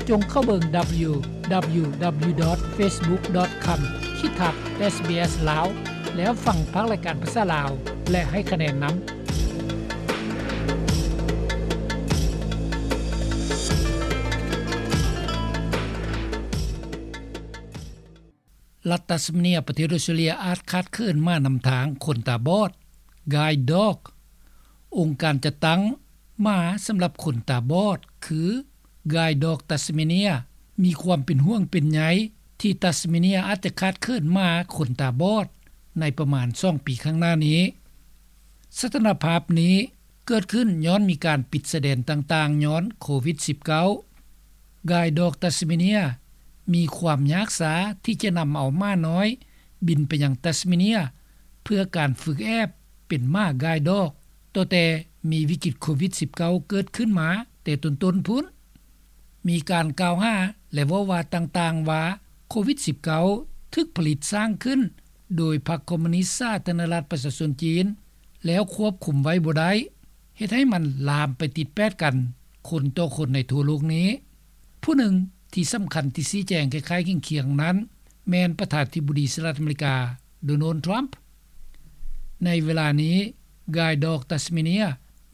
ຈົ່ງເຂົ້າເບິ່ງ www.facebook.com/sbslao ແລ້ວຟັງພາກລາຍການພາສາລາວ ແລະ ໃຫ້ຄະແນນນຳ. ລັດຕັດສະເມເນຍ ປະເທດອົດສະຕຣາເລຍ ອາດຂາດເຂີນໝານຳທາງຄົນຕາບອດ Guide Dog. ອົງການຈັດຕັ້ງໝາສຳລັບຄົນຕາບອດ ຄື Guide Dog Tasmania ມີຄວາມເປັນຫ່ວງເປັນໃຍ ທີ່ຕັດສະເມເນຍອາດຈະຂາດເຂີນໝາຄົນຕາບອດ ໃນປະມານສອງປີຂ້າງໜ້ານີ້. ສະຖານະພາບນີ້ ເກີດຂຶ້ນຍ້ອນມີການປິດຊາຍແດນຕ່າງໆ ຍ້ອນໂຄວິດ-19. Guide Dog Tasmania ມີຄວາມຍາກຊ້າທີ່ຈະນຳເອົາໝານ້ອຍບິນໄປຍັງຕັດສະເມເນຍ ເພື່ອການຝຶກແອບເປັນໝາ Guide Dog ຕັ້ງແຕ່ມີວິກິດໂຄວິດ-19 ເກີດຂຶ້ນມາແຕ່ຕົ້ນໆ ພຸ້ນ. ມີການກ່າວຫາ ແລະ ເວົ້າວ່າຕ່າງໆ ວ່າໂຄວິດ-19 ຖືກຜະລິດສ້າງຂຶ້ນໂດຍພັກຄອມມູນິດສາທາລະນະລັດປະຊາຊົນຈີນ ແລ້ວຄວບຄຸມໄວ້ບໍ່ໄດ້ ເຮັດໃຫ້ມັນລາມໄປຕິດແປດກັນຄົນຕໍ່ຄົນໃນທົ່ວໂລກນີ້. ຜູ້ໜຶ່ງທີ່ສຳຄັນທີ່ຊີ້ແຈງຄ້າຍໆຄຽງໆນັ້ນ ແມ່ນປະທານາທິບໍດີສະຫະລັດອາເມລິກາ ໂດນັລ ທຣຳ. ໃນເວລານີ້ Guide Dog Tasmania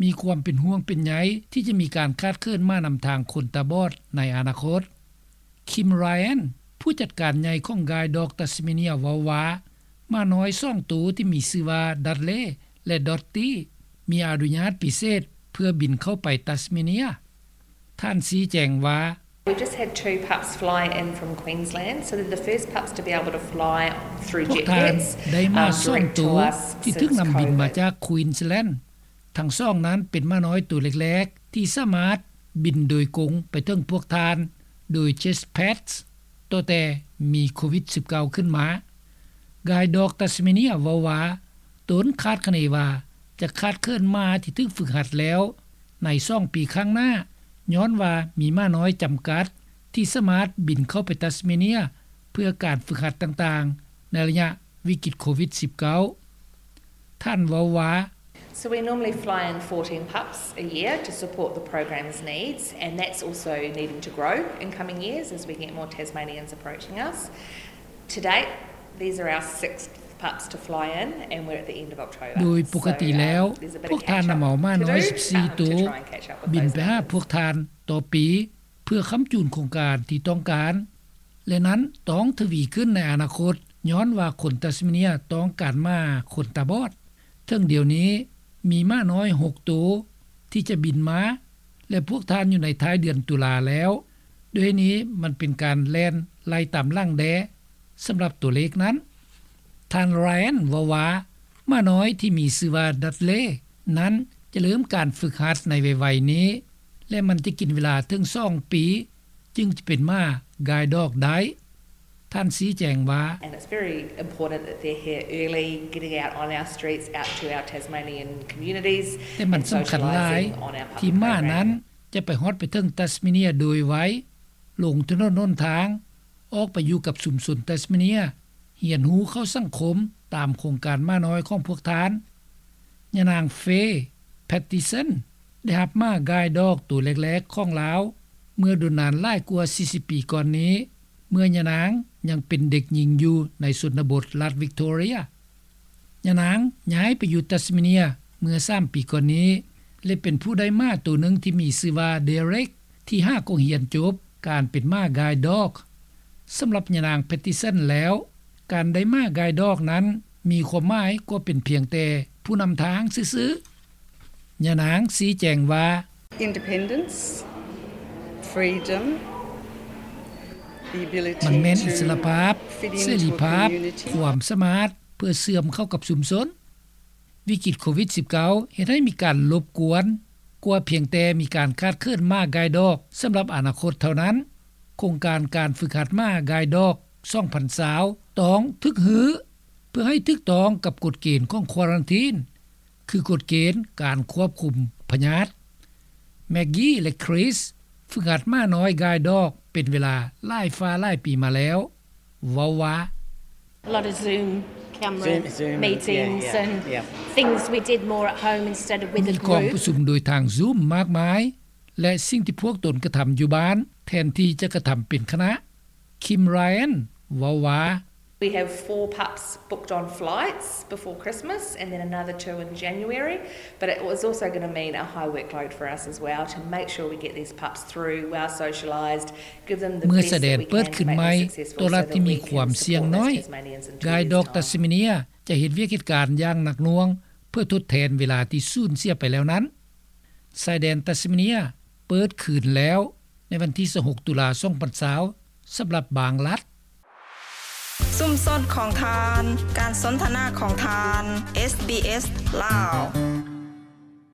ມີຄວາມເປັນຫ່ວງເປັນໃຍທີ່ຈະມີການຂາດເຂີນໝານຳທາງຄົນຕາບອດໃນອະນາຄົດ. Kim Ryan ຜູ້ຈັດການໃຫຍ່ຂອງ Guide Dog Tasmania ເວົ້າວ່າ ໝານ້ອຍສອງໂຕທີ່ມີຊື່ວ່າ Dudley ແລະ Dottie ມີອະນຸຍາດພິເສດເພື່ອບິນເຂົ້າໄປຕັດສະເມເນຍ. ທ່ານຊີ້ແຈງວ່າ We've just had two pups fly in from Queensland, so they're the first pups to be able to fly through jet pets, um, direct to us since COVID. ພວກທ່ານໄດ້ໝາສອງໂຕທີ່ຖືກນຳບິນມາຈາກ Queensland. ທັງສອງນັ້ນເປັນໝານ້ອຍໂຕແລກໆ ທີ່ສາມາດບິນໂດຍກົງໄປເຖິງພວກທ່ານໂດຍ Jet Pets ຕັ້ງແຕ່ມີໂຄວິດ-19 ຂຶ້ນມາ. Guide Dog Tasmania ເວົ້າວ່າ ຕົນຄາດຄະເນວ່າຈະຂາດເຂີນໝາທີ່ຖືກຝຶກຫັດແລ້ວໃນສອງປີຂ້າງໜ້າ ຍ້ອນວ່າມີໝານ້ອຍຈຳກັດທີ່ສາມາດບິນເຂົ້າໄປຕັດສະເມເນຍ ເພື່ອການຝຶກຫັດຕ່າງໆ ໃນໄລຍະວິກິດໂຄວິດ-19. ທ່ານເວົ້າວ່າ So we normally fly in fourteen pups a year to support the program's needs, and that's also needing to grow in coming years as we get more Tasmanians approaching us. To date, these are our sixth pups to fly in, and we're at the end of October. ໂດຍປົກກະຕິແລ້ວ ພວກທ່ານນຳເອົາໝານ້ອຍສິບສີ່ໂຕ ບິນໄປຫາພວກທ່ານຕໍ່ປີ ເພື່ອຄ້ຳຈູນໂຄງການທີ່ຕ້ອງການ ແລະ ນັ້ນຕ້ອງທະວີຂຶ້ນໃນອະນາຄົດ ຍ້ອນວ່າຄົນຕັດສະເມເນຍຕ້ອງການໝາຄົນຕາບອດ. ເຖິງດຽວນີ້ມີໝານ້ອຍຫົກໂຕທີ່ຈະບິນມາ ແລະ ພວກທ່ານຢູ່ໃນທ້າຍເດືອນຕຸລາແລ້ວ. ດ້ວຍນີ້ມັນເປັນການແລ່ນໄລ່ຕາມຫຼັງແດ່ສຳລັບຕົວເລກນັ້ນ. ທ່ານ Ryan ເວົ້າວ່າ ໝານ້ອຍທີ່ມີຊື່ວ່າ Dudley ນັ້ນຈະເລີ່ມການຝຶກຫັດໃນໄວໆນີ້ ແລະ ມັນຈະກິນເວລາເຖິງສອງປີ ຈຶ່ງຈະເປັນໝາ Guide Dog ໄດ້. ທ່ານຊີ້ແຈງວ່າ And it's very important that they're here early, getting out on our streets, out to our Tasmanian communities, ແຕ່ມັນສຳຄັນຫຼາຍທີ່ໝານັ້ນຈະໄປຮອດໄປເຖິງຕັດສະເມເນຍໂດຍໄວ, ລົງຖະໜົນຫົນທາງ, ອອກໄປຢູ່ກັບຊຸມຊົນຕັດສະເມເນຍ, ຮຽນຮູ້ເຂົ້າສັງຄົມຕາມໂຄງການໝານ້ອຍຂອງພວກທ່ານ. ຍານາງ Faye Pattison ໄດ້ຮັບໝາ Guide Dog ໂຕແລກໆຂອງລາວ ເມື່ອດົນນານຫຼາຍກວ່າສີ່ສິບປີກ່ອນນີ້, ເມື່ອຍານາງຍັງເປັນເດັກຍິງຢູ່ໃນຊົນນະບົດລັດ Victoria. ຍານາງຍ້າຍໄປຢູ່ຕັດສະເມເນຍເມື່ອສາມປີກ່ອນນີ້ ແລະ ເປັນຜູ້ໄດ້ໝາໂຕໜຶ່ງທີ່ມີຊື່ວ່າ Derek ທີ່ຫາກໍຮຽນຈົບການເປັນໝາ Guide Dog. ສຳລັບຍານາງ Pattison ແລ້ວ, ການໄດ້ໝາ Guide Dog ນັ້ນມີຄວາມໝາຍກວ່າເປັນພຽງແຕ່ຜູ້ນຳທາງຊື່ໆ. ຍານາງຊີ້ແຈງວ່າ Independence, freedom, the ability to fit into a community. ມັນແມ່ນອິດສະຫຼະພາບ, ເສລີພາບ, ຄວາມສາມາດເພື່ອເຊື່ອມເຂົ້າກັບຊຸມຊົນ. ວິກິດໂຄວິດສິບເກົ້າ ເຮັດໃຫ້ມີການລົບກວນກວ່າພຽງແຕ່ມີການຂາດເຂີນໝາ Guide Dog ສຳລັບອະນາຄົດເທົ່ານັ້ນ. ໂຄງການການຝຶກຫັດໝາ Guide Dog ສອງພັນຊາວ ຕ້ອງຖືກຮື້ ເພື່ອໃຫ້ຖືກຕ້ອງກັບກົດເກນຂອງ Quarantine ຄືກົດເກນການຄວບຄຸມພະຍາດ. Maggie ແລະ Chris ຝຶກຫັດໝານ້ອຍ Guide Dog ເປັນເວລາຫຼາຍຟ້າຫຼາຍປີມາແລ້ວ ເວົ້າວ່າ A lot of Zoom camera meetings and things we did more at home instead of with a group. ມີກອງປະຊຸມໂດຍທາງ Zoom ມາກມາຍ ແລະສິ່ງທີ່ພວກຕົນກະທຳຢູ່ບ້ານ ແທນທີ່ຈະກະທຳເປັນຄະນະ. Kim Ryan ເວົ້າວ່າ We have four pups booked on flights before Christmas and then another two in January, but it is also going to mean a high workload for us as well to make sure we get these pups through, well socialised, give them the best that we can to make them successful. ເມື່ອຊາຍແດນເປີດຂຶ້ນໃໝ່ ຕົວລັດທີ່ມີຄວາມສ່ຽງນ້ອຍ Guide Dog Tasmania ຈະເຮັດວຽກເຮັດການຢ່າງໜັກໜ່ວງ ເພື່ອທົດແທນເວລາທີ່ສູນເສຍໄປແລ້ວນັ້ນ. ຊາຍແດນ Tasmania ເປີດຄືນແລ້ວ ໃນວັນທີຊາວຫົກ ຕຸລາ ສອງພັນຊາວ ສຳລັບບາງລັດ. ຊຸມຊົນຂອງທ່ານ ການສົນທະນາຂອງທ່ານ ເອສບີເອສ ລາວ.